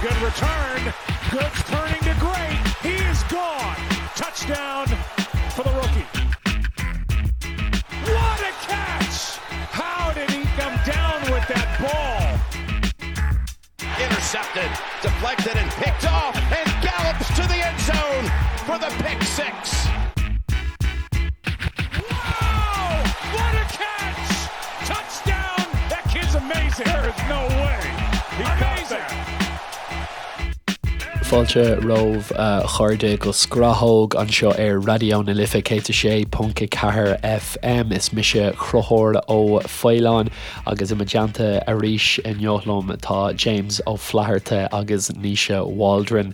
Good return. Good turning to great. He is gone. Touchdown for the rookie. What a catch! How did he come down with that ball? Intercepted, deflected, and picked off, and gallops to the end zone for the pick 6. Wow! What a catch! Touchdown! That kid's amazing. There is no way. He amazing. Fáilte romhaibh a chairde go Scrathóg anseo ar Raidió na Life 106.4 FM. Is mise Conchúr Ó Faoláin agus i mo dteannta arís inniu liom tá James Ó Flatharta agus Naoise Waldron.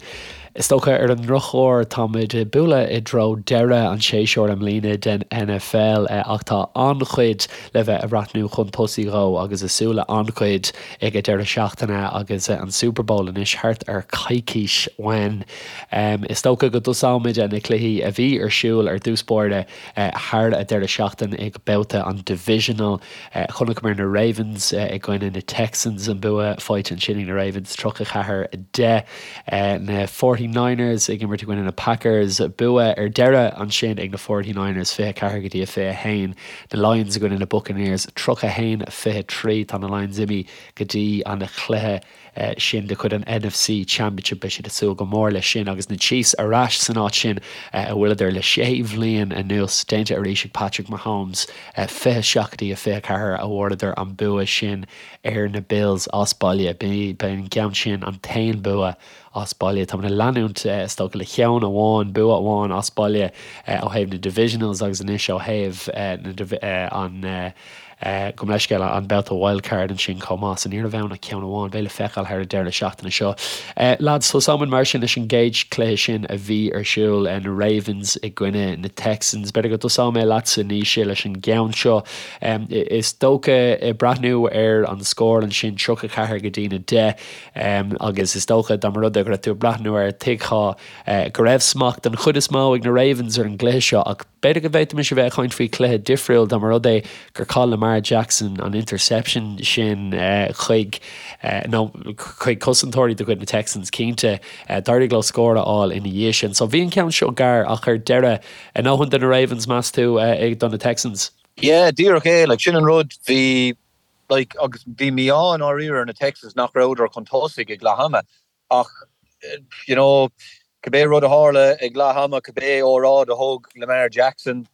Is dócha ar an ndrochuair táimid ag bualadh i dtreo deireadh an tséasúir i mbliana den NFL ach tá an-chuid le bheith ag breathnú chun tosaigh dhó agus ag súil le an-chuid ag an deireadh seachtaine agus an Super Bowl anois thart ar coicís uainn. Is dócha go dtosóimid na cluichí a bhí ar siúl ar dtús báire thar an deireadh seachtaine ag babhta an Divisional. Chonaiceamar na Ravens i gcoinne na Texans, an bua faighte ansin ag na Ravens, 34, 10. Na Forty Niners ag imirt i gcoinne na Packers, bua ar deireadh ansin ag na Forty Niners, 24 go dtí a 21. Na Lions i gcoinne na Buccaneers, 31, 23. Tá na Lions imithe go dtí an chluiche sin de chuid an NFC Championship. Beidh siad ag súil go mór leis sin agus na Chiefs ar ais san áit sin a bhfuileadar le sé bhliain anuas. Déanta arís ag Patrick Mahomes, 27 go dtí a 24 a bhfuaireadar an bua sin ar na Bills as baile. B'é an ceann sin an t-aon bua as baile. Táimid ag leanúint, is dócha, le ceann amháin, bua amháin as baile ó thaobh na Divisionals agus anois ó thaobh an Gabh mo leithscéal, an babhta wildcard ansin chomh maith, so ní raibh ann ach ceann amháin. Beidh le feiceáil thar an deireadh seachtaine seo. Lads, tosóimid mar sin leis an gcéad chluiche sin a bhí ar siúl, na Ravens i gcoinne na Texans. B'fhéidir go dtosóidh mé leatsa, Naoise, leis an gceann seo. Is dócha, ag breathnú ar an scór ansin, 34 go dtí na 10, agus is dócha dá mba rud é go raibh tú ag breathnú air, tuigfeá go raibh smacht den chuid is mó ag na Ravens ar an gcluiche seo ach, B'fhéidir go bhféadfaimis a bheith ag caint faoi chluiche difriúil dá mba rud é gur chaith Lamar Jackson an interception sin chuig, nó chuig cosantóirí de chuid na Texans cinnte. D'éirigh leo scór a fháil ina dhiaidh sin. So bhí an ceann seo gar ach ar deireadh, a ndóthain do na Ravens meas tú do na Texans? Yeah, díreach é. Like, sin an rud. Bhí, like, agus bhí mí-ádh i ndáiríre ar na Texans nach rabhadar chun tosaigh ag leath ama. Ach, you know, cibé rud a tharla ag leath ama, cibé óráid a thug Lamar Jackson,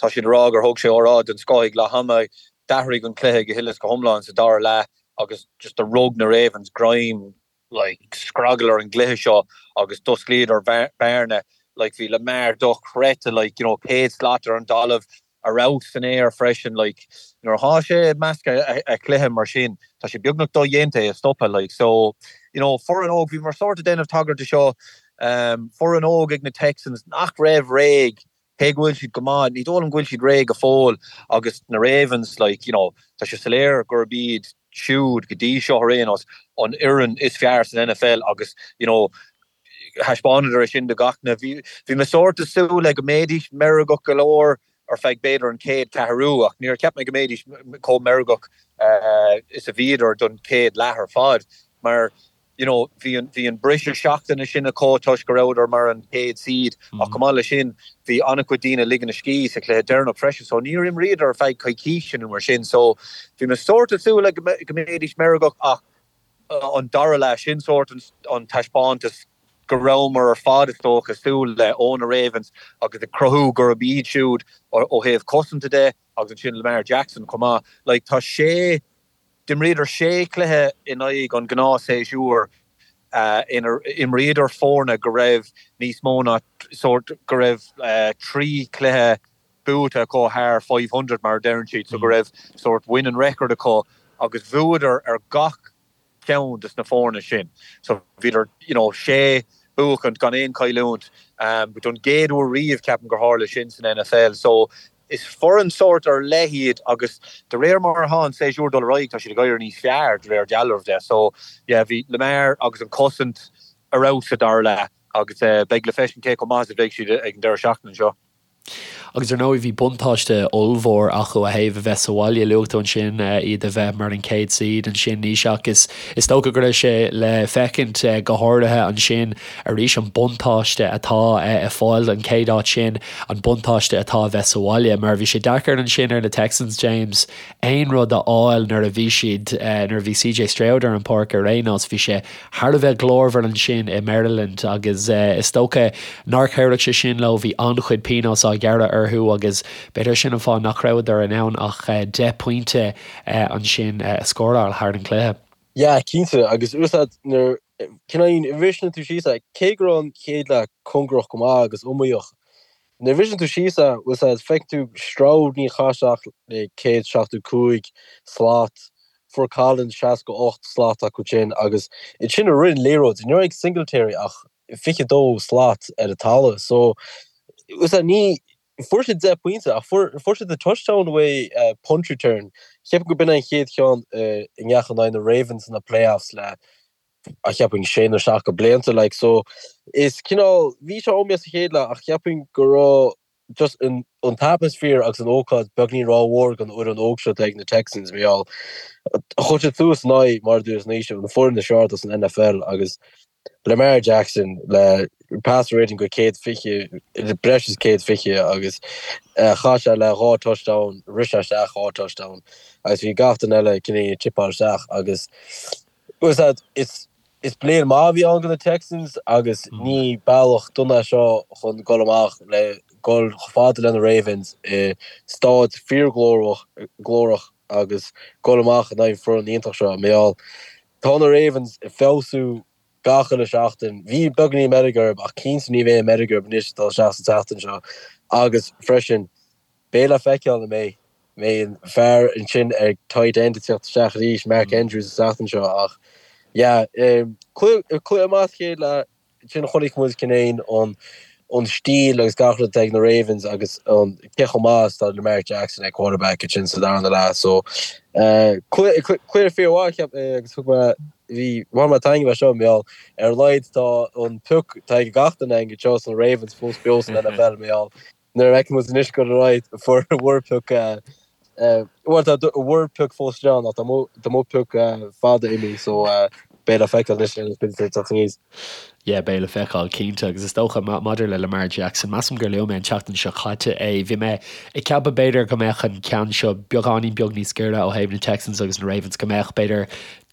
tá siad ag rá gur thug sé óráid den scoth ag leath ama, d'athraigh an cluiche go huile is go hiomlán sa dara leath agus just do rug na Ravens greim, like, scragall ar an gcluiche seo agus d'osclaíodar bearna, like, bhí Lamar dochreidte, like, you know, 100 slat ar an dtalamh, ar fheabhas san aer freisin like nuair atá sé i measc a chluiche mar sin tá sé beagnach dodhéanta é a stopadh like so you know foireann óg bhíomar sórt ag déanamh tagairt de seo um foireann óg ag na Texans nach raibh réidh cé go bhfuil siad go maith ní dóigh liom go bhfuil siad réidh go fóill agus na Ravens like you know tá sé soiléir gurb iad siúd go dtí seo ar aon nós an fhoireann is fearr san NFL agus you know Thaispeánadar é sin do gach duine. Bhí bhí mé sórt ag súil le go mbeidís meirgeach go leor ar feadh b'fhéidir an chéad ceathrú ach níor cheap mé go mbeidís chomh meirgeach is a bhíodar don chéad leath ar fad mar you know bhí an bhí an briseadh seachtaine sin acu toisc go rabhadar mar an chéad seed ach chomh maith leis sin bhí an-chuid daoine ag ligean a scíth sa chluiche deireanach freisin so níor imríodar ar feadh coicíse nó mar sin so bhí mé sórt ag súil le go mbeidís meirgeach ach an dara leath, sin sórt an taispeántas go rabhamar ar fad, is dócha, ag súil le ó na Ravens agus ag cruthú gurb iad siúd ó thaobh cosanta de agus ansin Lamar Jackson chomh maith. Like, tá sé, d'imríodar sé chluiche in aghaidh an ghnáthshéasúir inar imríodar foirne go raibh níos mó ná sórt, go raibh 3 chluiche buaite acu thar 500 mar a deireann siad, so go raibh sórt winning record acu agus bhuadar ar gach ceann des na foirne sin. So bhíodar, you know, sé buachaint gan aon chailliúint don gcéad uair riamh ceapaim gur tharla sin san NFL. So is foireann sórt ar leith iad agus de réir mar atá an séasúr ag dul ar aghaidh tá siad ag éirí níos fearr de réir dealraimh de. So yeah, bhí Lamar agus an cosaint ar fheabhas sa dara leath agus beidh le feiscint cé chomh maith is a bheidh siad ag an deireadh seachtaine seo. Agus ar ndóigh bhí buntáiste ollmhór acu ó thaobh a bheith sa bhaile, luaigh tú ansin iad a bheith mar an chéad seed ansin Naoise ach is is dócha go raibh sé le feicint go háirithe ansin arís an buntáiste atá ag fáil an chéad áit sin, an buntáiste atá a bheith sa bhaile mar bhí sé deacair ansin ar na Texans, James, aon rud a fháil nuair a bhí siad, nuair a bhí CJ Stroud ar an pháirc ar aon nós, bhí sé thar a bheith glórmhar ansin i Maryland agus is dócha nár chabhraigh sé sin leo, bhí an-chuid pionós á ghearradh orthu agus b'fhéidir sin an fáth nach rabhadar in ann ach 10 pointe ansin a scóráil thar an gcluiche. Yeah, cinnte, agus úsáid nuair, cineál, bhriseann tú síos é, cé go raibh an chéad leath cóngarach go maith agus iomaíoch, Nuair a bhriseann tú síos é, bhfuil 's a'd, feiceann tú Stroud níor chaith sé ach 175 slat, fuair Collins 68 slat acu sin agus ansin a rith an liathróid, ní raibh ag Singletary ach 22 slat ar an talamh. So, bhfuil 's a'd, ní, fuair siad 10 pointe ach fuair, fuair siad an touchdown uaidh punt return. Cheapfainn go b'in é an chéad cheann i ndeachaigh in aghaidh na Ravens sna playoffs le a cheapfainn sé nó seacht go blianta like so is cineál bhí sé iomaíoch sa chéad leath ach cheapfainn go raibh just an an t-atmosphere agus an ócáid beagnín rómhór don fhoireann óg seo atá ag na Texans mar gheall chuir siad suas in aghaidh mar a dúirt Naoise an foireann is fearr atá san NFL agus Lamar Jackson le passer rating go 120 breis is 120 agus chaith sé le dhá touchdown rith sé isteach dhá touchdown agus bhí gach duine eile cineál ag tipeáil isteach agus Bhfuil 's a'd, is is bliain maith a bhí ann do na Texans agus ní bealach dona é seo chun dul amach le dul chomh fada le na Ravens i staid fíorghlórach glórach agus dul amach in aghaidh an foireann iontach seo. Mar gheall, tá na Ravens ag feabhsú gach uile seachtain. Bhí beagáinín meirg orthu ach cinnte ní bheidh an meirg orthu anois ag dul isteach sa tseachtain seo agus freisin Beidh le feiceáil an mbeidh mbeidh an fear ansin ag tight end ag teacht isteach arís, Mark Andrews an tseachtain seo ach yeah cluiche cluiche maith sa chéad leath ansin chonaic muid cineál an an stíl agus gach rud atá ag na Ravens agus an cé chomh maith is atá Lamar Jackson ag quarterback ansin sa darna leath so cluiche cluiche fíormhaith cheap mé agus thug mé bhí bhain mé taitneamh as seo mar gheall ar a laghad tá an pioc atá ag gach duine againn anseo sna Ravens fós beo san NFL mar gheall Nuair a fheiceann muid anois go raibh fuair bhur pioc bhuel tá bhur pioc fós ann ach tá mo tá mo pioc fada imithe so beidh le feiceáil anois ar an teacht aníos. Yeah, beidh le feiceáil cinnte agus is dócha maidir le Lamar Jackson, measaim gur luaigh mé an tseachtain seo caite é, bhí mé ag ceapadh b'fhéidir go mbeadh an ceann seo beagáinín beag níos giorra ó thaobh na Texans agus na Ravens, go mbeadh b'fhéidir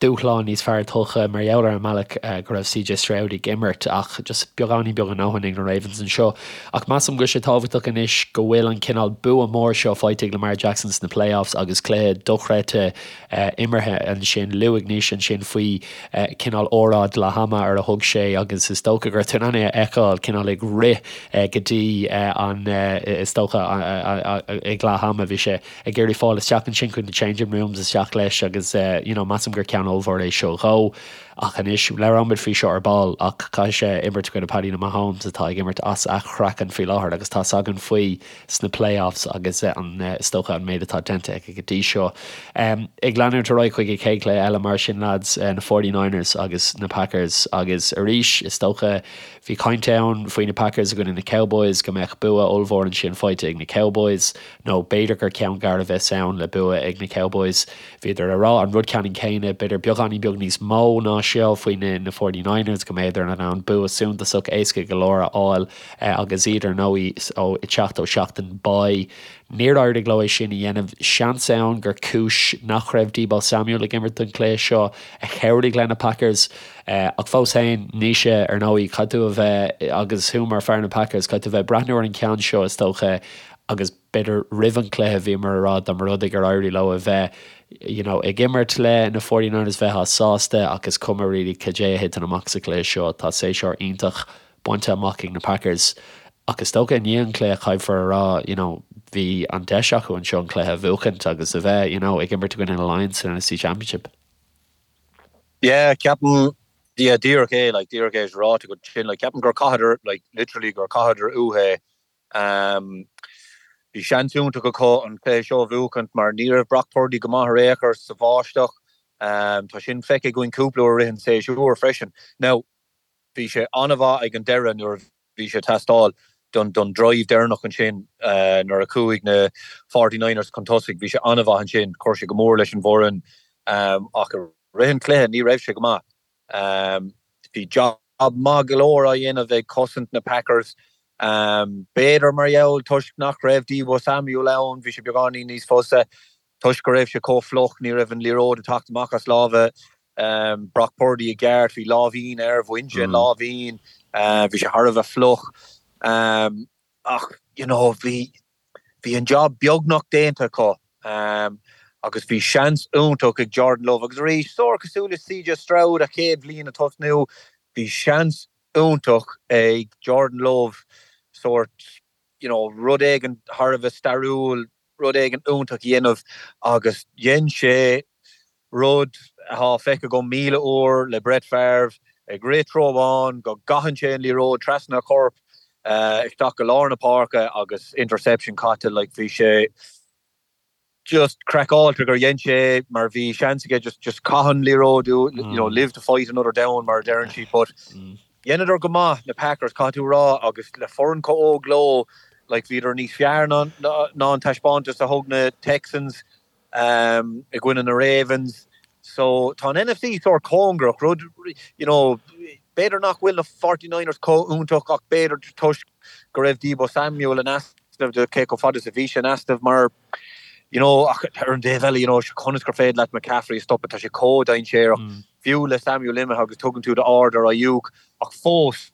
dúshlán níos fearr tugtha mar gheall ar an mbealach go raibh CJ Stroud ag imirt ach just beagáinín beag a ndóthain ag na Ravens anseo. Ach measaim go bhfuil sé tábhachtach anois go bhfuil an cineál bua mór seo faighte ag Lamar Jackson sna playoffs agus cluiche dochreidte imeartha ansin. Luaigh Naoise ansin faoi cineál óráid leath ama ar a thug sé agus is dócha go raibh tú in ann é a fheiceáil cineál ag rith go dtí an is dócha ag leath ama bhí sé ag iarraidh fáil isteach ansin chuig na changing rooms isteach leis agus you know measaim gur ceann ollmhór é seo dhó. Ach anois, labhróimid faoi seo ar ball ach caithfidh sé imirt i gcoinne Paddy na Mahomes atá ag imirt as a chraiceann faoi láthair agus tá's againn faoi sna playoffs agus an is dócha an méid atá déanta aige go dtí seo. Ag leanúint ar aghaidh chuig an chéad chluiche eile mar sin lads, na 49ers agus na Packers agus arís is dócha bhí caint ann faoi na Packers i gcoinne na Cowboys go mbeadh bua ollmhór ansin faighte ag na Cowboys. nó b'fhéidir gur ceann gar a bheas ann le bua ag na Cowboys. Bhíodar ag rá an rud ceannann céanna, b'fhéidir beagáinín beag níos mó ná seo faoi na na 49ers, go mbeadar in ann bua suntasach éasca go leor a fháil agus iad ar ndóigh ó ag teacht ó seachtain bye. Níor éirigh leo é sin a dhéanamh. Seans ann gur cúis nach raibh Deebo Samuel ag imirt don chluiche seo a chabhraigh le na Packers. Ach fós féin, Naoise, ar ndóigh, caithfidh tú a bheith, agus thú mar fear na Packers, caithfidh tú a bheith ag breathnú ar an cheann seo is dócha agus b'fhéidir roimh an chluiche bhíomar ag rá dá mba rud é gur éirigh leo a bheith you know ag imirt le na 49ers bheifeá sásta ach is cuma really cad é a thiteann amach sa chluiche seo tá séasúr iontach bainte amach ag na Packers ach is dócha i ndiaidh an chluiche caithfear a rá you know bhí an deis acu anseo an cluiche a bhuachaint agus a bheith you know ag imirt i gcoinne na Lions san NFC Championship. Yeah, ceapaim, yeah, díreach é, like, díreach é is ráite agat sin, like, ceapaim gur chaitheadar, like, literally gur chaitheadar uathu é. Bhí seans iontach acu an cluiche seo a bhuachaint mar ní raibh Brock Purdy go maith ar aon chor sa bháisteach. Tá sin feicthe againn cúpla uair i rith an tséasúir freisin. Now, bhí sé an-mhaith ag an deireadh nuair a bhí sé ag teastáil. don don drive deireanach ansin nuair a chuaigh na 49ers chun tosaigh, bhí sé an-mhaith ansin, chuir sé go mór leis an bhfoireann ach i rith an chluiche ní raibh sé go maith. Bhí job maith go leor á dhéanamh ag cosaint na Packers. B'fhéidir mar gheall toisc nach raibh Deebo Samuel ann, bhí sé beagáinín níos fusa. Toisc go raibh sé chomh fliuch, ní raibh an liathróid ag teacht amach as lámha Brock Purdy i gceart. Bhí láimhín air, bhain sé an láimhín, bhí sé thar a bheith fliuch. Ach, you know, bhí, bhí an job beagnach déanta acu agus bhí seans iontach ag Jordan Love. Agus arís, sórt cosúil le CJ Stroud a chéad bhliain ag tosnú, bhí seans iontach ag Jordan Love sórt, you know, rud éigin thar a bheith stairiúil, rud éigin iontach a dhéanamh agus dhein sé rud atá feicthe agam 1,000 uair le Brett Favre, ag rith treo amháin go gcaitheann sé an liathróid trasna a chorp isteach go lár na páirce agus interception caite like bhí sé just craiceáilte gur dhein sé é mar bhí seans aige just just caith an liathróid you know live to fight another down mar a deireann siad but Dheineadar go maith, na Packers, caithfidh tú a rá, agus le foireann chomh óg leo, like, bhíodar níos fearr ná ná an taispeántas a thug na Texans i gcoinne na Ravens. So, tá an NFC sórt cóngarach, rud, you know, b'fhéidir nach bhfuil na 49ers chomh iontach ach b'fhéidir toisc go raibh Deebo Samuel in easnamh de cé chomh fada is a bhí sé in easnamh mar, you know, ach ar an dtaobh eile, you know, conas gur féidir leat McCaffrey a stopadh, tá sé chomh dainséarach. fiú le Samuel imithe agus tugann tú d'aird ar Aiyuk ach fós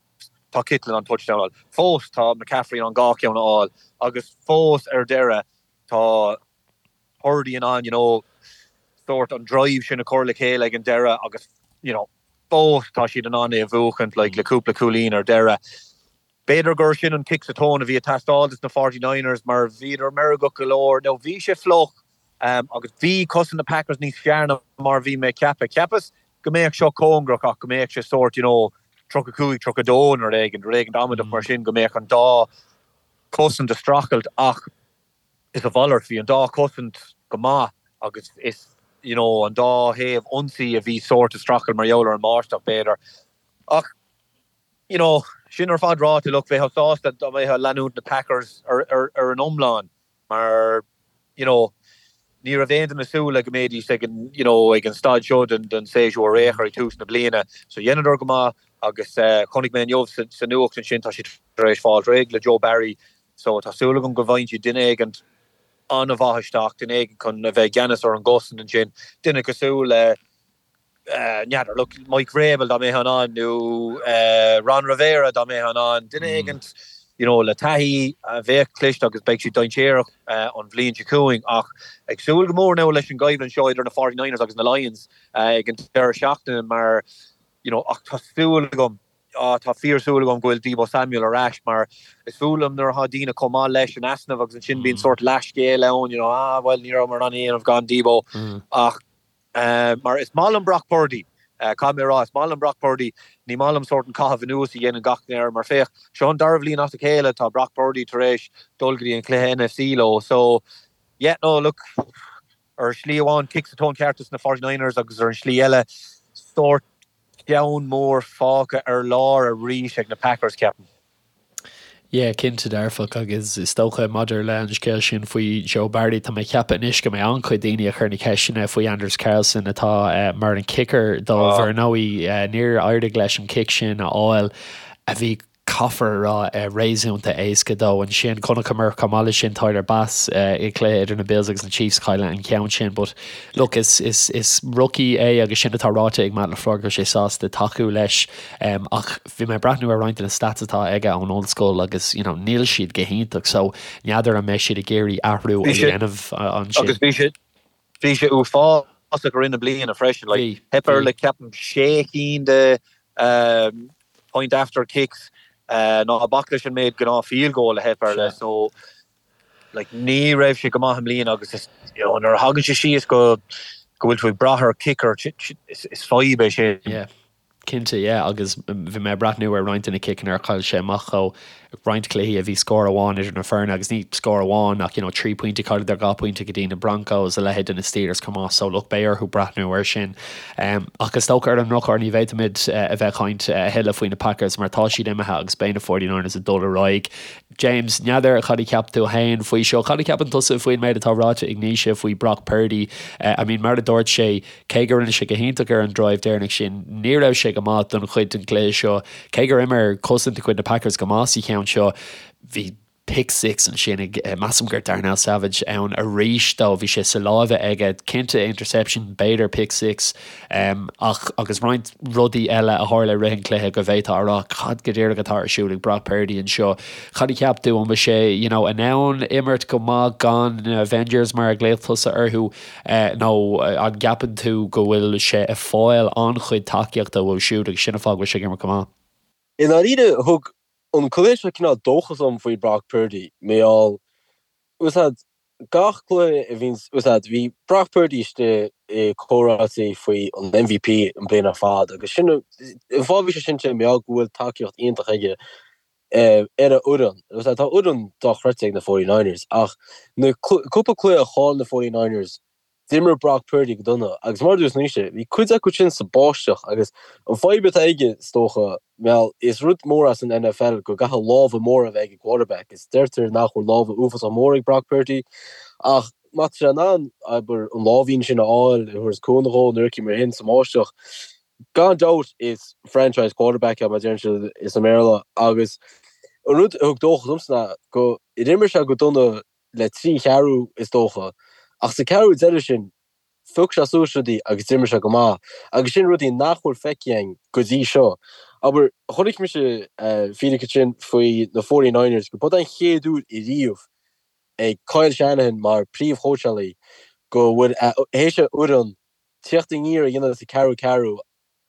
tá Kittle in ann touchdown a fháil, fós tá McCaffrey in ann dhá cheann a fháil agus fós ar deireadh tá Purdy in ann you know sórt an drive sin a chur le chéile ag an deireadh agus you know fós tá siad in ann é a bhuachaint like le cúpla cúilín ar deireadh. B'fhéidir gur sin an cic sa tóin a bhí ag teastáil dos na 49ers mar bhíodar meirgeach go leor. Now bhí sé fliuch agus bhí cosaint na Packers níos fearr ná mar bhí mé ag ceapadh. Cheapas go mbeadh seo cóngarach ach go mbeadh sé sórt you know 35, 32 nó rud éigin, rud éigin amaideach mar sin, go mbeadh an dá chosaint ag streachailt ach is a mhalairt, bhí an dá chosaint go maith agus is you know an dá thaobh ionsaí a bhí sórt ag streachailt mar gheall ar an mbáisteach b'fhéidir. Ach you know, sin ar fad ráite, look, bheifeá sásta dá mbeifeá ag leanúint na Packers ar, ar, ar an iomlán mar, you know, ní raibh aon duine ag súil le go mbeidís ag an, you know, ag an staid seo den, den séasúr ar aon chor ag tús na bliana. So dheineadar go maith agus eh, chonaic mé inniu sa, sa nuacht ansin tá siad tar éis fáil réidh le Joe Barry so tá súil agam go bhfaigheann siad duine éigint an-mhaith isteach, duine éigin chun a bheith i gceannas ar an gcosaint ansin, duine cosúil le n'fheadar, look, Mike Vrabel dá mbeifeá in ann nó Ron Rivera dá mbeifeá in ann, duine éigint you know le taithí a bheadh cliste agus beidh siad dainséarach an bhliain seo chugainn ach ag súil go mór now leis an gcoimhlint seo idir na 49ers agus na Lions ag an deireadh seachtaine mar you know ach tá súil agam ah tá fíor súil agam go bhfuil Deebo Samuel ar ais mar is fuath liom nuair atá daoine chomh maith leis in easnamh agus ansin bíonn sórt leathscéal ann you know ah bhuel ní rabhamar in ann é a dhéanamh gan Deebo ach Mar is maith liom Brock Purdy, caithfidh mé a rá, is maith liom Brock Purdy, ní maith liom sórt an caitheamh anuas a dhéanann gach duine air, mar féach, seo an dara bhliain as a chéile tá Brock Purdy tar éis dul go dtí an cluiche NFC leo, so yeah, no, look, ar shlí amháin cic sa tóin ceart dos na 49ers agus ar an slí eile, sórt ceann mór fágtha ar lár arís ag na Packers, ceapaim. Yeah, cinnte dearfach agus is dócha maidir le an scéal sin faoi Joe Barry, tá mé ag ceapadh anois go mbeidh an-chuid daoine ag cur na ceisteanna faoi Anders Carlson atá mar an kicker dóibh. Ar ndóigh níor éirigh leis an cic sin a fháil a bhí, caithfear a rá, réasúnta éasca dó. Ansin chonaiceamar chomh maith leis sin Tyler Bass i gcluiche idir na Bills agus na Chiefs cailleadh an ceann sin but look is is is rookie é agus sin atá ráite ag Matt LaFleur go bhfuil sé sásta tacú leis ach Bhí mé ag breathnú ar roinnt de na stats atá aige ón ollscoil agus you know níl siad go hiontach so n'fheadar an mbeidh siad ag iarraidh athrú a dhéanamh ansin. Agus bhí sé bhí sé uafásach i rith na bliana freisin like theip air le ceapaim sé cinn de point after kicks ná bac leis an méid gnáth field goal a theip air le so like ní raibh sé go maith i mbliana agus is you know nuair a thagann sé síos go go bhfuil tú ag brath ar kicker is fadhb é sin. Yeah. Cinnte, yeah, agus bhí mé ag breathnú ar roinnt de na ciceanna ar chaill sé amach dhó, roinnt cluichí a bhí scór amháin idir na foirne agus ní scór amháin ach you know 3 pointe, chailleadar 2 pointe go dtí na Broncos, a leithéid de na Steelers chomh maith so look beidh orthu breathnú air sin. Ach is dócha ar an ndrochuair ní bhféadfaimid a bheith ag caint a thuilleadh faoi na Packers mar tá siad imithe agus beidh na 49ers ag dul ar aghaidh. James, n'fheadar cad a cheap tú féin faoi seo? Cad a cheapann tusa faoin méid atá ráite ag Naoise faoi Brock Purdy? I mean mar a dúirt sé, Cé go rinne sé go hiontach ar an drive deireanach sin, ní raibh sé go maith don chuid den chluiche seo. Cé gur imir cosaint de chuid na Packers go maith sa cheann seo, bhí pick six ansin ag, measaim gur Darnell Savage ann arís dó, bhí sé sa láimhe aige, cinnte interception, b'fhéidir pick six, ach agus roinnt rudaí eile a tharla i rith an chluiche go bhféadfá a rá cad go díreach atá ar siúl ag Brock Purdy anseo. Cad a cheap tú, an bhfuil sé you know in ann imirt go maith gan na Avengers mar a ghlaoigh tusa orthu? Nó an gceapann tú go bhfuil sé ag fáil an-chuid tacaíochta uathu siúd agus sin an fáth go bhfuil sé ag imirt go maith? I ndáiríre, thug an cluiche seo cineál dóchas dom faoi Brock Purdy. Mar gheall, bhfuil a fhios agat, gach cluiche a bhíonns, bhfuil a fhios agat, bhí Brock Purdy istigh i comhráití faoi an MVP an bliain ar fad agus sin an fáth a bhí sé sin mar gheall go bhfuil tacaíocht iontach aige. ar a fhoireann. Tá fhoireann dochreidte ag na 49ers ach na cúpla cluiche a chaill na 49ers d'imir Brock Purdy go dona agus mar a dúirt Naoise, bhí cuid acu sin sa báisteach agus an fadhb atá aige is dócha, bhuel, is rud mór as an NFL go gcaithfidh lámha móra a bheith ag an quarterback is deirtear nach bhfuil lámha uafásach mór ag Brock Purdy ach má tá sé in ann, abair, an láimhín sin a fháil a thabharfas cúnamh dhó nuair mar sin sa mbáisteach. Gan dabht is franchise quarterback é mar a deireann siad i mBéarla agus an rud a thug dóchas domsa ná gur imir sé go dona le 3 cheathrú is dócha ach sa ceathrú deiridh sin phioc sé suas rudaí agus d'imir sé go maith agus sin rudaí nach bhfuil feicthe againn go dtí seo. Abair, chonaic mise fíric ansin faoi na 49ers go b'é an chéad uair ariamh ag Kyle Shanahan mar príomhchóitseálaí go bhfuil théis a fhoireann tíocht aniar a dhéanamh sa ceathrú ceathrú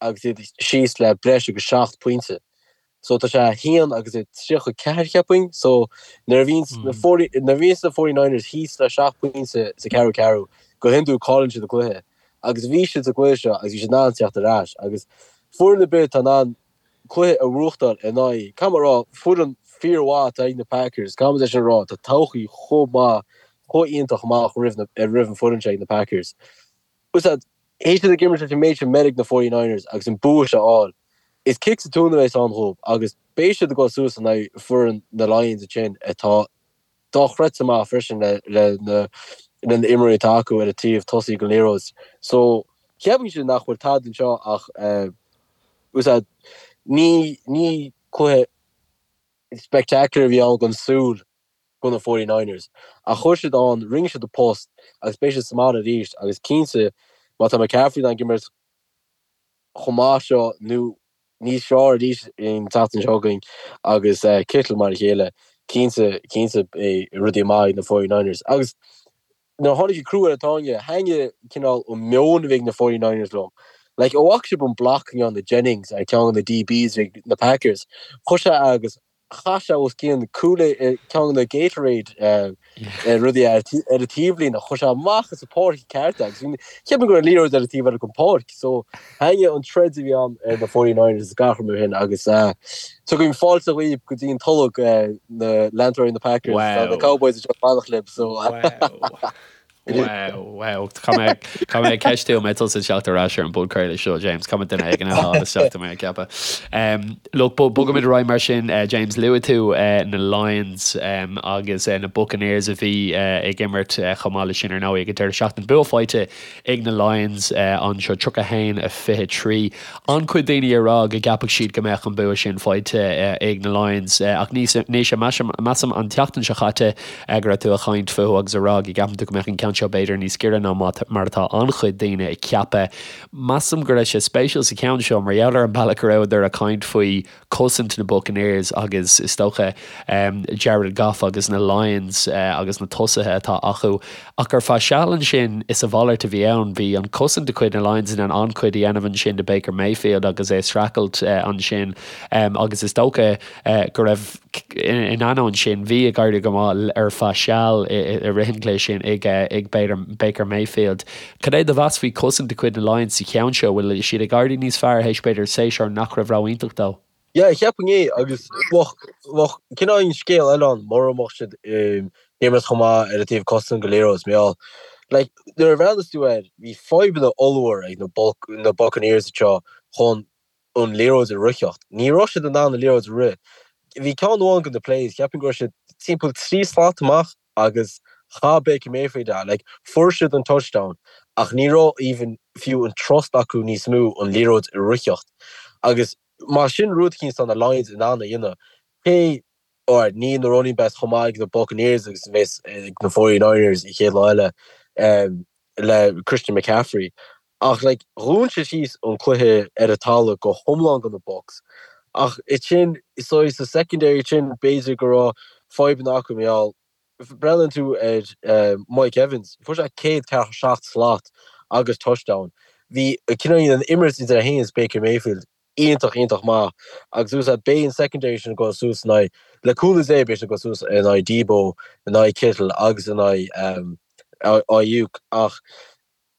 agus iad síos le breis agus 7 pointe. So tá sé 1 agus 34 cheapfainn. So nuair a bhíonns na nuair a bhíonns na 49ers thíos le 7 pointe sa ceathrú ceathrú, go hiondúil cailleann siad an cluiche. Agus bhí siad sa gcluiche seo agus bhí siad in ann tíocht ar ais. Agus foireann ar bith atá in ann cluiche a bhuachtáil in aghaidh, caithfidh mé a rá, foireann fíormhaith atá ag na Packers, caithfidh muid é sin a rá, tá todhchaí chomh maith, chomh iontach amach roimh na, roimh an foireann seo ag na Packers. Bhfuil a fhios agat, théis iad ag imirt leis an méid sin meirg na 49ers agus an bua seo a fháil, is kick sa tóin a bheas ann dhóibh agus beidh siad ag dul suas in aghaidh foireann na Lions ansin atá dochreidte maith freisin le le na le na imreoirí atá acu ar an taobh tosaigh den liathróid. So cheapfainnse nach bhfuil tada anseo ach bhfuil a fhios agat, ní ní cluiche spectacular a bhí ann don súil do na 49ers ach chuir siad ann, rinne siad a post agus beidh siad sa mbaile arís agus cinnte má tá McCaffrey in ann imirt chomh maith seo nó níos fearr arís an tseachtain seo chugainn agus Kittle mar a chéile, cinnte, cinnte beidh rudaí maith ag na 49ers. Agus nuair a tháinig an crú ar an tairne, thaitnigh cineál an meon a bhí ag na 49ers liom. Like, an bhfaca sibh an block a ndearna Jennings ar ceann de na DBs ag na Packers? Chuir sé agus chaith sé os cionn Kool-Aid, ceann de na Gatorade rudaí ar an taobhlíne, chuir sé amach as an pháirc ceart é agus cheap mé go raibh an liathróid ar an taobh eile den pháirc. So thaitnigh an troid a bhí ann ar na 49ers is gach rud mar sin agus tugaim fáilte dhaoibh go dtí an tolg na leantóirí na Packers, tá na Cowboys anseo ag fanacht libh so. Wow, wow. Caithfidh mé ceistiú an mbeidh tusa ag teacht ar ais ar an bpodchraoladh seo, James. Caithfidh mé duine éigin a fháil isteach tá mé ag ceapadh. Look, bogaimid ar aghaidh mar sin, James. Luaigh tú na Lions agus na Buccaneers a bhí ag imirt chomh maith leis sin ar ndóigh ag an deireadh seachtaine. Bua faighte ag na Lions anseo, 31 23. An-chuid daoine ag rá go gceapfadh siad go mbeadh an bua sin faighte ag na Lions ach Naoise, measaim an tseachtain seo caite go raibh tú ag caint fúthu agus ag rá go gceapann tú go mbeadh an ceann seo b'fhéidir níos giorra ná mar atá an-chuid daoine ag ceapadh. Measaim go raibh sé spéisiúil sa cheann seo mar gheall ar an bealach go rabhadar ag caint faoi cosaint na Buccaneers agus is dócha Jared Goff agus na Lions agus na tosaithe atá acu. Ach ar feadh seal ansin is a mhalairt a bhí ann. Bhí an cosaint de chuid na Lions in ann an-chuid a dhéanamh ansin do Baker Mayfield agus é ag streachailt ansin agus is dócha go raibh. In ainneoin sin, bhí ag éirí go maith ar feadh seal i rith an chluiche sin ag ag Baker Mayfield. Cad é do mheas faoi chosaint de chuid na Lions sa cheann seo? Bhfuil siad ag éirí níos fearr théis b'fhéidir séasúr nach raibh ró-iontach dóibh? Yeah, cheapfainn é agus bheadh bheadh cineál scéal eile ann mura mbeadh siad ag imirt chomh maith ar an taobh cosanta den liathróid mar gheall like nuair a bhreathnas tú air bhí fadhbanna ollmhór ag na na Buccaneers anseo chun an liathróid a ritheacht. Ní raibh siad in ann an liathróid a rith. Bhí ceann amháin de na plays, cheapfainn go raibh siad timpeall 3 slat amach agus chaith Baker Mayfield é. Like, fuair siad an touchdown ach ní raibh even fiú an trust acu níos mó an liathróid a ritheacht. Agus má sin rud eicínt atá na Lions in ann a dhéanamh, cé Alright, níl na running backs chomh maith ag na Buccaneers agus a bheas ag na 49ers an chéad lá eile le Christian McCaffrey. Ach like, dhún siad síos an cluiche ar an talamh go hiomlán do na Bucs. Ach ansin, saghas sa secondary sin, b'fhéidir go raibh fadhbanna acu mar gheall, breathnaíonn tú ar Mike Evans, fuair sé 147 slat agus touchdown. Bhí cineál an imirt idir é féin is Baker Mayfield iontach, iontach maith agus úsáid beidh an secondary sin ag dul suas in aghaidh, le cúnamh Dé, beidh siad ag dul suas in aghaidh Deebo, in aghaidh Kittle agus in aghaidh Aiyuk ach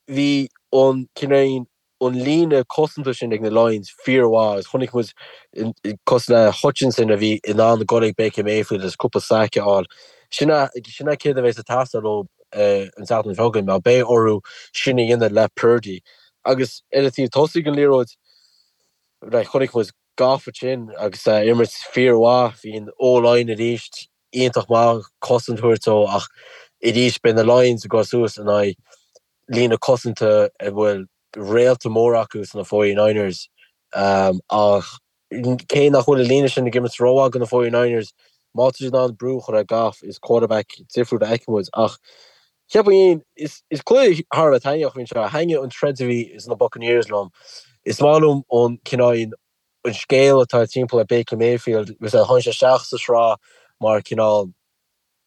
bhí an cineál an líne cosanta sin ag na Lions fíormhaith agus chonaic muid cosúil le Hutchinson a bhí in ann dul ag Baker Mayfield agus cúpla sack a fháil. Sin é sin é céard a bheas ag teastáil ó an tseachtain seo chugainn mar beidh orthu sin a dhéanamh le Purdy agus ar an taobh tosaigh den liathróid Right, chonaic muid Goff ansin agus é ag imirt fíormhaith. Bhí an O-line arís iontach maith, cosaint a thabhairt dó ach arís beidh na Lions ag dul suas in aghaidh líne cosanta a bhfuil réalta mór acu sna 49ers. Ach cé nach bhfuil an líne sin ag imirt rómhaith do na 49ers, má tá siad in ann brú a chur ar Goff, is quarterback difriúil a fheicfidh muid. Ach Cheapfainn, is cluiche thar a bheith taitneamhach a bhí anseo. Thaitnigh an troid a bhí ins na Buccaneers liom. Is maith liom an cineál, an scéal atá timpeall ar Baker Mayfield. Tháinig sé isteach sa sraith mar cineál,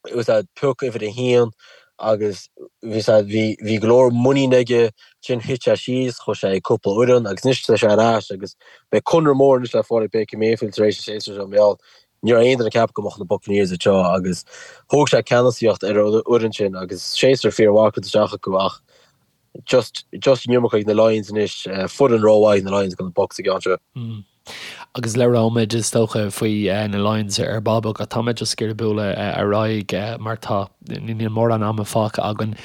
pioc uimhir a haon agus bhí bhí go leor muinín aige. Ansin thit sé síos, chuaigh sé ag cúpla fhoireann agus anois tá sé ar ais agus beidh conradh mór anois le fáil ag Baker Mayfield tar éis an séasúr seo mar gheall Ní raibh aon duine ag ceapadh go mbeadh na Buccaneers anseo agus thóg sé ceannasaíocht ar an fhoireann sin agus séasúr fíormhaith curtha isteach acu ach just just an iomarca ag na Lions anois, foireann rómhaith ag na Lions do na Bucs an ceann seo. Agus labhróimid is dócha faoi na Lions ar ball beag ach tá mé just ag iarraidh bualadh ar aghaidh mar tá níl mórán ama fágtha againn.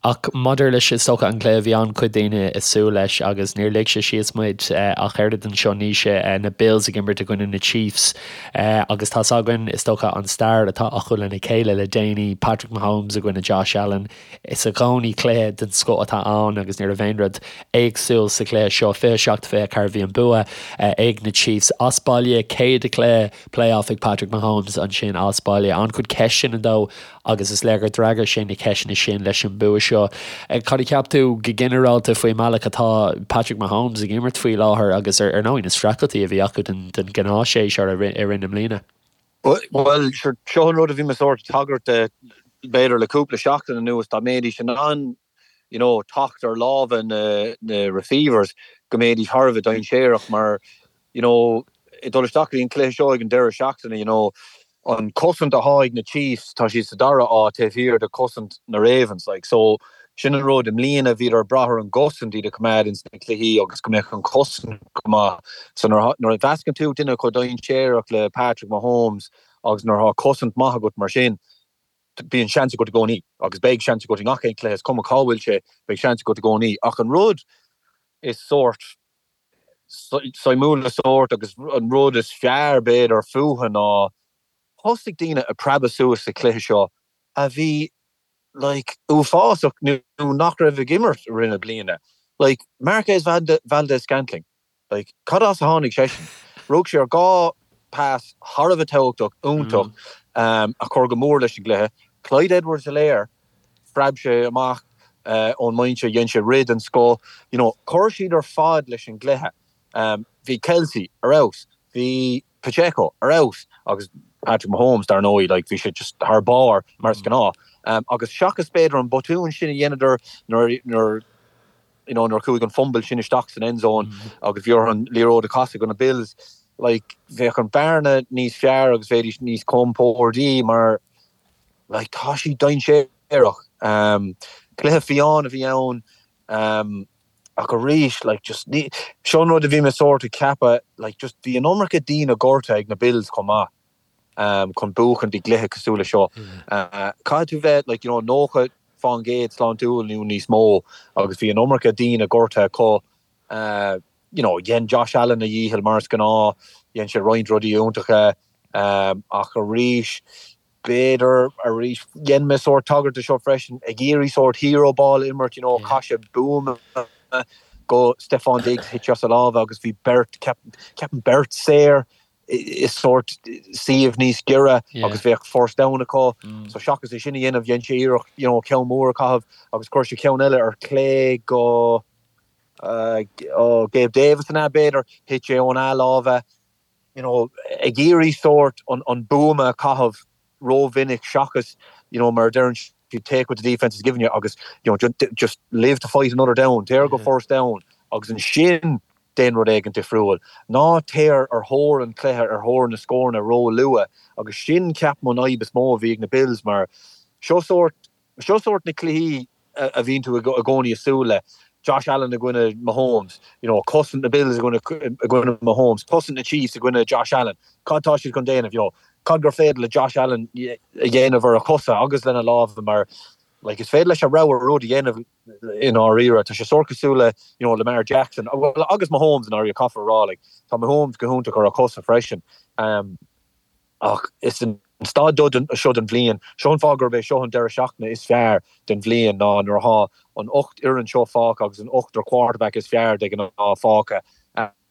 Ach maidir leis, is dócha, an cluiche, bhí an-chuid daoine ag súil leis agus níor lig sé síos muid ach oiread anseo Naoise, na Bills ag imirt i gcoinne na Chiefs agus tá's againn, is dócha, an stair atá acu lena chéile le déanaí, Patrick Mahomes i gcoinne Josh Allen. Is i gcónaí cluiche den scoth atá ann agus ní raibh aon rud éagsúil sa chluiche seo. 27-24 bhí an bua ag na Chiefs as baile, céad cluiche playoff ag Patrick Mahomes ansin as baile. An-chuid ceisteanna dó agus is léir gur d'fhreagair sé na ceisteanna sin leis an bua seo. Cad a cheap tú go ginearálta faoin mbealach atá Patrick Mahomes ag imirt faoi láthair agus ar ndóigh na streachailtí a bhí acu den ghnáthshéasúr i rith na mbliana? Bhuel, seo an rud a bhí mé sórt ag tagairt de b'fhéidir le cúpla seachtain anuas, dá mbeidís in ann you know, teacht ar lámha na, na receivers go mbeidís thar a bheith dainséarach mar, you know, ag dul isteach go dtí an cluiche seo ag an deireadh seachtaine, you know, an cosaint atá ag na Chiefs, tá siad sa dara áit taobh thiar de chosaint na Ravens, like, so sin an rud, i mbliana bhíodar ag brath ar an gcosaint iad a choimeád ins na cluichí agus go mbeadh an chosaint go maith. So nuair, nuair a mheascann tú duine chomh dainséarach le Patrick Mahomes agus nuair atá cosaint maith agat mar sin, bíonn seans agat i gcónaí agus beidh seans agat i ngach aon chluiche, is cuma cá bhfuil sé, beidh seans agat i gcónaí. Ach an rud is sórt suimiúla sórt agus an rud is fearr b'fhéidir fúthu ná thosaigh daoine ag preabadh suas sa chluiche seo a bhí like uafásach nó nach raibh ag imirt i rith na bliana. Like Marquez Valdes-Scantling. Like, cad as a tháinig seisean? Rug sé ar dhá pass thar a bheith tábhachtach, iontach, a chuir go mór leis an gcluiche. Clyde Edwards-Helaire, phreab sé amach ón mbinse, dhein sé rith den scoth. You know, chuir siad ar fad leis an gcluiche. Bhí Kelce ar fheabhas, bhí Pacheco ar fheabhas agus Patrick Mahomes, dar ndóigh, like, bhí sé just thar barr mar is gnáth. Agus seachas b'fhéidir an botún sin a dheineadar nuair, nuair, you know, nuair a chuaigh an fumble sin isteach san end zone agus bhí orthu an liathróid a chasadh go na Bills. Like, bheadh an bearna níos fearr agus bheidís níos compórdaí mar, like, tá siad dainséarach. Cluiche fiáin a bhí ann ach arís, like, just ní, seo an rud a bhí mé sórt ag ceapadh, like, just bhí an iomarca daoine gortaithe ag na Bills chomh maith chun buachaint i gcluiche cosúil le seo. Caithfidh tú bheith, like, you know, 90 fán gcéad sláintiúil nó níos mó agus bhí an iomarca daoine gortaithe acu. You know, dhein Josh Allen a dhícheall mar is gnáth, dhein sé roinnt rudaí iontacha ach arís, b'fhéidir arís, dhein mé sórt tagairt do seo freisin, ag iarraidh sórt hero ball a imirt, you know, chaith sé buama go Stefon Diggs, thit sé as a lámha agus bhí beirt, ceapaim beirt saor i sórt suíomh níos giorra agus bheadh first down acu. So seachas é sin a dhéanamh, dhein sé iarracht, you know, ceann mór a chaitheamh agus chuir sé ceann eile ar clé go ó Gabe Davis an ea, b'fhéidir, thit sé óna lámha, you know, ag iarraidh sórt an, an buama a chaitheamh rómhinic seachas, you know, mar a deireann siad, take what the defence is giving you agus, you know, just, just live to fight another down, téir go first down agus ansin déan rud éigin difriúil. Ná téir ar thóir an chluiche, ar thóir na scóranna ró-luath agus sin, ceapaim, an fhadhb is mó a bhí ag na Bills mar seo sórt, Seo sórt na cluichí a bhíonn tú i gcónaí ag súil le. Josh Allen i gcoinne Mahomes, you know, cosaint na Bills i gcoinne Mahomes, cosaint na Chiefs i gcoinne Josh Allen. Cad tá siad chun déanamh, you know? Cad gur féidir le Josh Allen a dhéanamh ar a chosa agus lena lámha mar like is féidir leis a rogha rud a dhéanamh i ndáiríre. Tá sé sórt cosúil le, you know, Lamar Jackson, well agus Mahomes i ndáiríre, caithfear a rá, like tá Mahomes go hiontach ar a chosa freisin. Um, Ach is an staid seo den bhliain, seo an fáth gurb é seo an deireadh seachtaine is fearr den bhliain, ná nuair atá an 8 fhoireann seo fágtha agus an ochtar quarterback is fearr de ghnáth fágtha.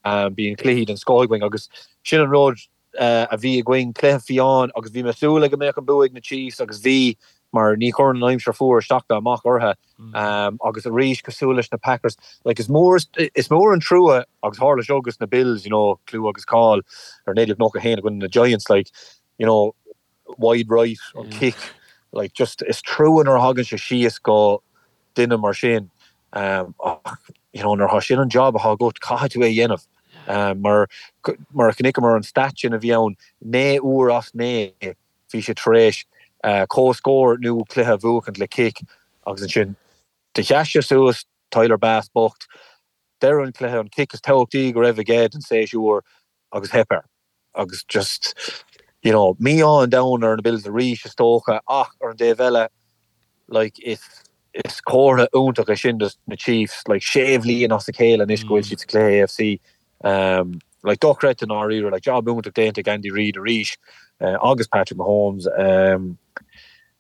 Bíonn cluichí den scoth againn agus sin an rud a bhí againn, cluiche fiáin agus bhí mé ag súil le go mbeadh an bua ag na Chiefs agus bhí mar ní chuireann an aimsir fuar isteach ná amach orthu. Agus arís, cosúil leis na Packers, like is mór, is mór an trua, agus tharla seo agus na Bills, you know, clú agus cáil ar 1991 i gcoinne na Giants, like, you know, wide right, an kick, like just is trua nuair a thagann sé síos go duine mar sin, ach, you know, nuair atá sin an job atá agat, caithfidh tú é a dhéanamh. Mar, mar a chonaiceamar an stat sin a bhí ann, 9 uair as 9, Bhí sé tar éis comhscór nó cluiche a bhuachaint le cic agus ansin do sheas sé suas, Tyler Bass bocht, deireadh an chluiche, an cic is tábhachtaí go raibh aige den séasúr agus theip air. Agus just, you know, mí-ádh an domhain ar na Bills arís is dócha ach ar an dtaobh eile, like, is is comhartha iontach é sin dos na Chiefs, like, sé bhliain as a chéile anois go bhfuil siad sa chluiche AFC. Um, like, dochreidte i ndáiríre, like, job iontach déanta ag Andy Reid arís uh, agus Patrick Mahomes. Um,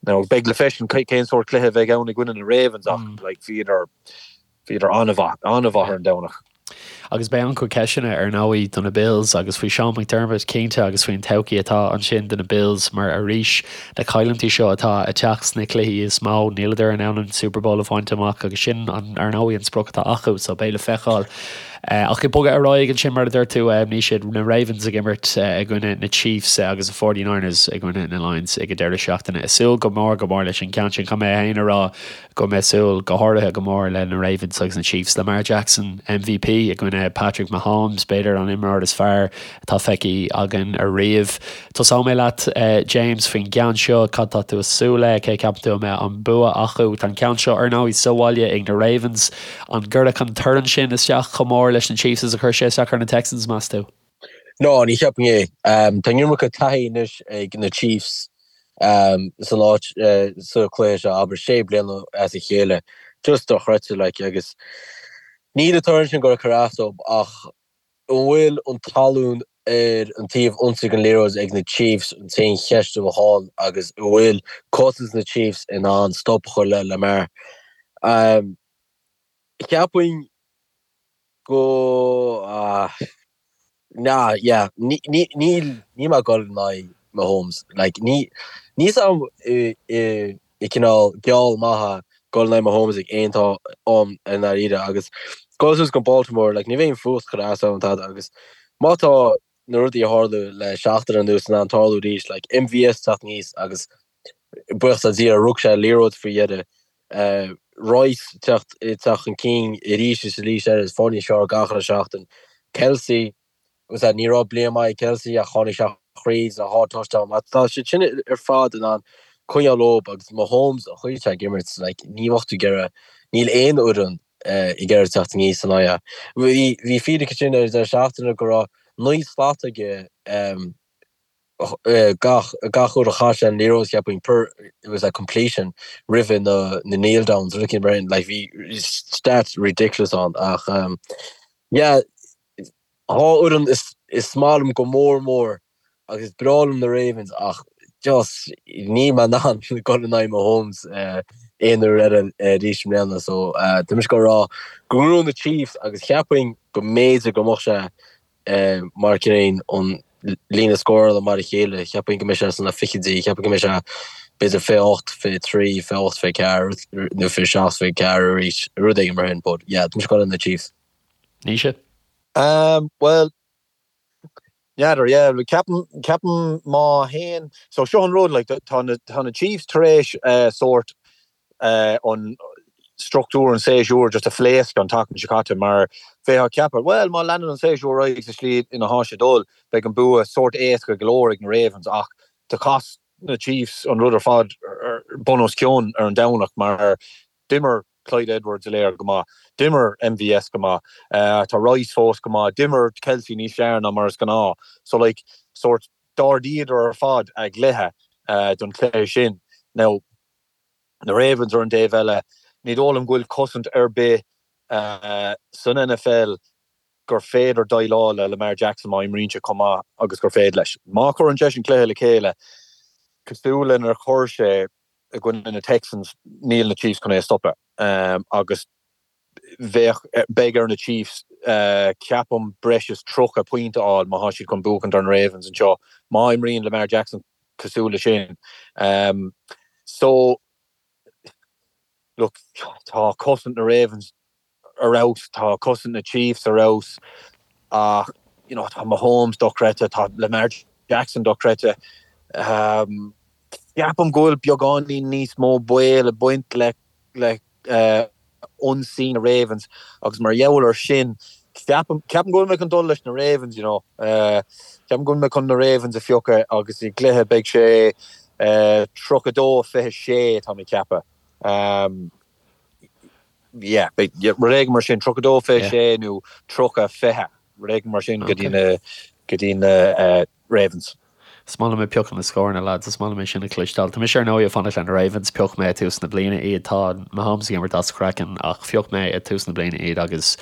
now, beidh le feiscint cén sórt cluiche a bheidh ann i gcoinne na Ravens ach mm. like, bhíodar bhíodar an-mhaith, an-mhaith ar an Domhnach. Agus beidh an-chuid ceisteanna ar ndóigh do na Bills agus faoi Sean McDermott cinnte agus faoin todhchaí atá ansin do na Bills mar arís na cailliúintí seo atá ag teacht sna cluichí is mó níleadar in ann an Super Bowl a bhaint amach agus sin an ar ndóigh an sprioc atá acu so beidh le feiceáil Ach ag bogadh ar aghaidh ansin, mar a dúirt tú, ní siad na Ravens ag imirt i gcoinne na Chiefs agus na 49ers i gcoinne na Lions ag an deireadh seachtaine. Ag súil go mór go mór leis an gceann sin. Caithfidh mé féin a rá go mbeidh súil go háirithe go mór le na Ravens agus na Chiefs. Lamar Jackson, MVP i gcoinne Patrick Mahomes, b'fhéidir an imreoir is fearr atá feicthe againn ariamh. Tosóidh mé leat, James, faoin gceann seo. Cad tá tú ag súil le? Cé ceapann tú a mbeidh an bua acu? Tá an ceann seo, ar ndóigh, sa bhaile ag na Ravens. An gcuirfeadh an torann sin isteach chomh mór leis na Chiefs is a chuir sé isteach ar na Texans, meas tú? No, ní cheapaim é. Tá an iomarca taithí anois ag na Chiefs san áit sa chluiche seo, abair, sé bliana as a chéile. Just dochreidte, like, agus níl an torann sin ag cur as dóibh ach An bhfuil an talún ar an taobh ionsaí den liathróid ag na Chiefs an t-aon cheist a bheadh ann agus an bhfuil cosaint na Chiefs in ann stop a chur le Lamar? Cheapfainn go nah yeah níl níl mé ag dul in aghaidh Mahomes like ní níl a fhios agam i i cineál geall maith dul in aghaidh Mahomes ag aon am i ndáiríre agus dul suas go Baltimore like ní bheidh an fuacht ag cur as dom tada agus má tá na rudaí a tharla le seachtain anuas in ann tarlú arís like MVS teacht aníos agus buíochas le Dia rug sé liathróid faoi dheireadh Rice teacht teacht chun cinn arís is arís eile is fáil níos fearr gach uile seachtain Kelce. Bhfuil a fhios a'd, ní raibh bliain maith ag Kelce ach tháinig sé thríd le dhá touchdown. Má tá siad sin ar fad in ann coinneáil leo agus Mahomes an chaoi atá ag imirt, like, ní bheadh tú ag iarraidh, níl aon fhoireann ag iarraidh teacht aníos ina aghaidh. Bhí, bhí fíric ansin ar an deireadh seachtaine go raibh 9 slat aige gach, gach uair a chaith sé an liathróid, cheapfainn, per, it was a completion roimhe na, na kneel downs, rud éicint mar sin, like, bhí stats ridiculous ann ach, yeah, Dhá fhoireann is maith liom go mór mór agus is breá liom na Ravens ach just níl mé in ann dul in aghaidh Mahomes aon uair eile arís i mbliana so tá mise ag rá go ngnóthóidh na Chiefs agus cheapfainn go mb'fhéidir go mbeadh sé mar cineál an líne scórála mar a chéile, cheapfainn go mbeidh sé sna fichidí, cheapfainn go mbeidh sé b'fhéidir 28, 23, 28, 24 nó 27, 24 arís, rud éigin mar sin but yeah tá mise ag dul le na Chiefs. Naoise? Bhuel, n'fheadar, yeah, ceapaim, ceapaim má théann, so seo an rud, like, tá na, tá na Chiefs tar éis sórt an struchtúr an séasúir just a phléascadh an tseachtain seo caite mar bheifeá ag ceapadh, bhuel, má leanann an séasúr ar aghaidh sa slí ina thá sé ag dul, beidh an bua sórt éasca go leor ag na Ravens ach do chas na Chiefs an rud ar fad bun os cionn ar an Domhnach mar D'imir Clyde Edwards-Helaire go maith. D'imir MVS go maith. Tá Rice fós go maith. D'imir Kelce níos fearr ná mar is gnáth. So like, sórt, d'ardaíodar ar fad a gcluiche don chluiche sin. Now, na Ravens ar an dtaobh eile, ní dóigh liom go bhfuil cosaint ar bith san NFL gur féidir déileáil le Lamar Jackson má imríonn sé chomh maith agus gur féidir leis. Má chuireann seisean cluiche le chéile cosúil lenar chuir sé i gcoinne na Texans, níl na Chiefs chun é a stopadh agus bheadh, beidh ar na Chiefs, ceapaim, breis is 30 pointe a fháil má thá siad chun buachaint ar na Ravens anseo, má imríonn Lamar Jackson cosúil le sin. So, look, tá cosaint na Ravens ar fheabhas, tá cosaint na Chiefs ar fheabhas ach you know tá Mahomes dochreidte, tá Lamar Jackson dochreidte. Ceapaim go bhfuil beagáinín níos mó baol ag baint le le ionsaí na Ravens agus mar gheall ar sin ceapaim ceapaim go bhfuil mé chun dul leis na Ravens you know. Ceapaim go bhfuil mé chun na Ravens a phiocadh agus i gcluiche beidh sé 32 26 tá mé ag ceapadh. Yeah, beidh rud éigin mar sin, 32 26 nó 30 20, rud éigin mar sin go dtí na, go dtí na Ravens. Is maith liom ag piocadh na scóranna, lads, is maith liom é sin a chloisteáil. Tá mise ar ndóigh ag fanacht le na Ravens, phioc mé ag tús na bliana iad, tá Mahomes ag imirt as a chraiceann ach phioc mé ag tús na bliana iad agus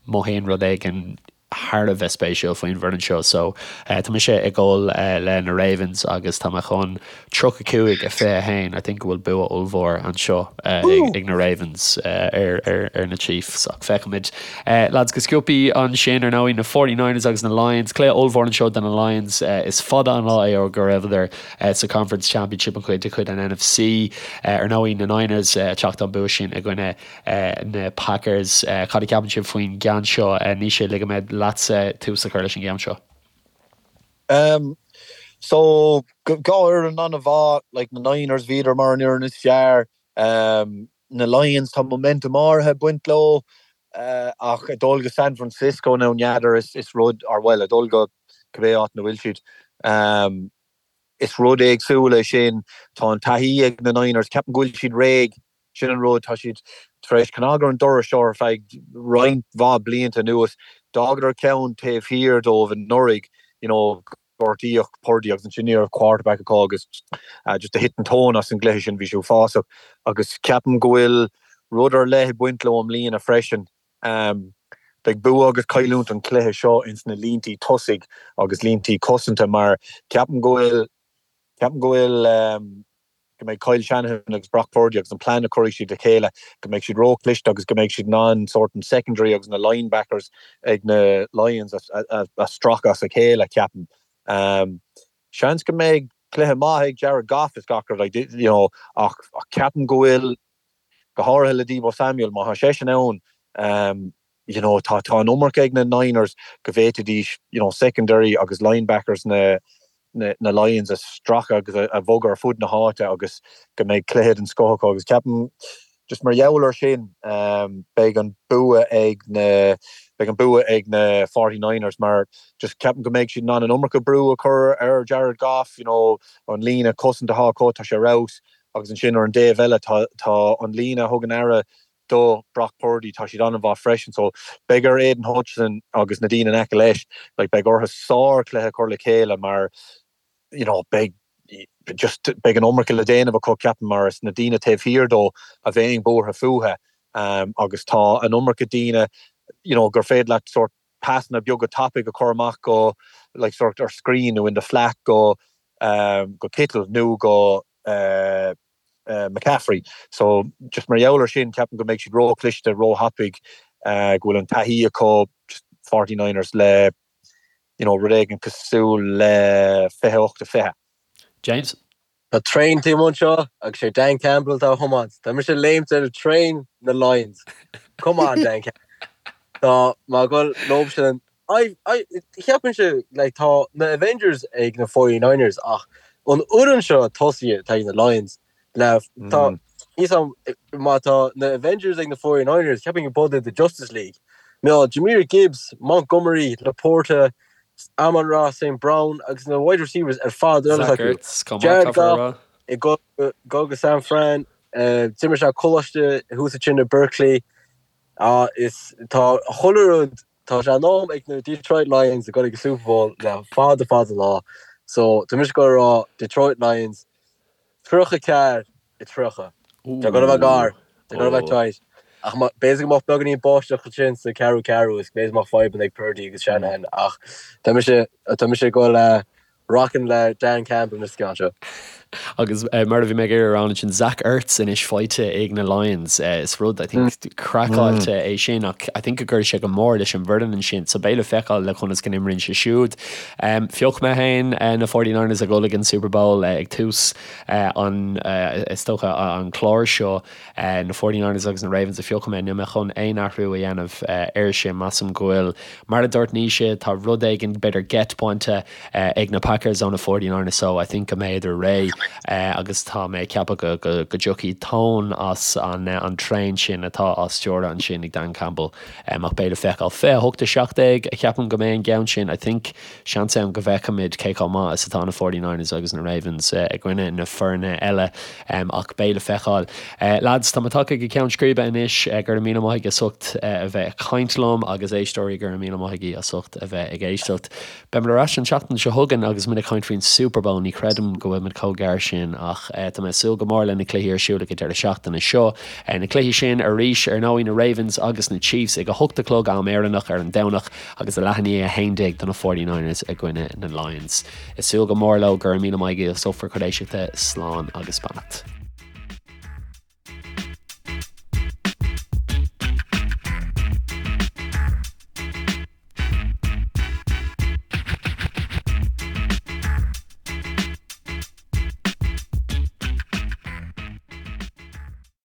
mothaíonn rud éigin thar a bheith spéisiúil faoin bhfoireann seo. So tá mise ag dul le na Ravens agus tá mé chun 35 21 I think go bhfuil bua ollmhór anseo ag na Ravens ar ar na Chiefs ach feicfimid. Lads go sciobtha ansin ar ndóigh na 49ers agus na Lions. Cluiche ollmhór anseo do na Lions. Is fada an lá é ó go raibheadar sa Conference Championship an chuid de chuid an NFC. Ar ndóigh na Niners ag teacht ón bua sin i gcoinne na Packers. Cad a cheapann sibh faoin gceann seo? Naoise, ligfidh mé leatsa tús a chur leis an gceann seo. Um, so, dhá fhoireann an-mhaith, like na Niners bhíodar mar an fhoireann is fearr, um, na Lions tá momentum áirithe ag baint leo, uh, ach ag dul go San Francisco now n'fheadar is, is rud, or well, ag dul go cibé áit ina bhfuil siad, um, is rud éagsúil é sin, tá an taithí ag na Niners, ceapaim go bhfuil siad réidh Sin an rud, tá siad tar éis cnag ar an doras seo ar feadh roinnt mhaith blianta anuas. D'fhágadar ceann taobh thiar dóibh anuraidh, you know, gortaíodh Purdy agus ansin ní raibh quarterback acu agus just do thit an tóin as an gcluiche sin, bhí sé uafásach. Agus ceapaim go bhfuil rud ar leith ag baint leo i mbliana freisin. Beidh bua agus cailliúint an chluiche seo ins na líntí tosaigh agus líntí cosanta mar ceapaim go bhfuil, ceapaim go bhfuil, go mbeidh Kyle Shanahan agus Brock Purdy agus an plean a chuirfidh siad le chéile, go mbeidh siad róchliste agus go mbeidh siad in ann sórt an secondary agus na linebackers ag na Lions a stracadh as a chéile, ceapaim. Seans go mbeidh cluiche maith ag Jared Goff is gach rud, like, you know, ach ceapaim go bhfuil, go háirithe le Deebo Samuel, má tá seisean ann, you know, tá tá an iomarca ag na Niners go bhféadfaidís, you know, secondary agus linebackers na na na Lions a stracadh agus a a bhogadh ar fud na háite agus go mbeidh cluiche den scoth acu agus ceapaim just mar gheall ar sin, beidh an bua ag na. beidh an bua ag na 49ers mar just ceapaim go mbeidh siad in ann an iomarca brú a chur ar Jared Goff, you know, an líne cosanta atá acu, tá sé ar fheabhas agus ansin ar an dtaobh eile tá tá an líne a thugann aire do Brock Purdy, tá siad an-mhaith freisin so beidh ar Aidan Hutchinson agus na daoine in aice leis, like beidh orthu sár-chluiche a chur le chéile mar you know beidh just beidh an iomarca le déanamh acu ceapaim mar is na daoine taobh thiar dó a bheidh buartha fúthu agus tá an iomarca daoine you know gur féidir leat sort pasanna beaga tapaidh a chur amach go like sort ar screen nó in the flat go go Kittle nó go McCaffrey. So just mar gheall ar sin ceapaim go mbeidh siad ró-chliste, ró-thapaidh, go bhfuil an taithí acu just 49ers le you know rud éigin cosúil le 28-20. James? Tá traein taobh amuigh anseo agus sé Dan Campbell atá á thiomáint. Tá mise ag léimt ar traein na Lions. Come on Dan Campbell. Tá mé ag dul leo sin. I, I, cheapfainnse like tá na Avengers ag na 49ers ach an fhoireann seo tosaithe atá ag na Lions le tá níos am má tá na Avengers ag na 49ers cheapfainn go b'fhéidir the Justice League. Nó Jahmyr Gibbs, Montgomery, LaPorta, Amon-Ra St. Brown agus na wide receivers ar fad ar Zach acu. Ertz, chomh maith, Jared caithfear a Goff rá. ag dul go go San Fran, d'imir sé coláiste thuas ansin i Berkeley. Ah, is tá chuile rud, tá sé in am ag na Detroit Lions a ghoil ag an Super Bowl le fada fada lá. So tá mise ag goil a rá Detroit Lions 34 30. Tá goil a bheith gar, tá goil a bheith tight. Ach b'fhéidir go mbeadh beagáinín báisteach ansin sa ceathrú ceathrú is b'fhéidir go mbeadh fadhbanna ag Purdy agus Shanahan ach tá mise, tá mise ag goil le rockin le Dan Campbell an ceann seo. Agus mar a bhí mé ag iarraidh a rá ansin, Zach Ertz anois faighte ag na Lions. Is rud, I think, craiceáilte é sin ach I think go gcuirfidh sé go mór leis an bhfoireann ansin. So beidh le feiceáil le conas go n-imríonn sé siúd. Phioc mé féin na 49ers ag dul ag an Super Bowl ag tús an, is dócha, an chláir seo. Na 49ers agus na Ravens a phioc mé. Níl mé chun aon athrú a dhéanamh air sin. Measaim go bhfuil, mar a dúirt Naoise, tá rud éigin, b'fhéidir geit bainte ag na Packers ó na 49ers so I think go mbeidh réidh agus tá mé ag ceapadh go go dtiocfaidh tóin as an an traein sin atá á stiúradh ansin ag Dan Campbell ach beidh le feiceáil. 28 17 a cheapaim go mbeidh an ceann sin. I think seans ann go bhfeicfimid cé chomh maith is atá na 49ers agus na Ravens i gcoinne na foirne eile ach beidh le feiceáil. Lads, tá muid tagtha go ceann scríbe anois. Go raibh míle maith agaibh as ucht a bheith ag caint liom agus éisteoirí, go raibh míle maith agaibh as ucht a bheith ag éisteacht. Beimid ar ais an tseachtain seo chugainn agus muid ag caint faoin Super Bowl. Ní chreidim go bhfuil muid chomh gearr sin ach tá mé ag súil go mór le na cluichí ar siúl ag an deireadh seachtaine seo. Na cluichí sin arís, ar ndóigh, na Ravens agus na Chiefs ag a hocht a chlog am Éireannach ar an Domhnach agus a leath i ndiaidh a 11 do na 49ers i gcoinne na Lions. Ag súil go mór leo. Go raibh míle maith agaibh as ucht bhur gcuid éisteachta. Slán agus beannacht.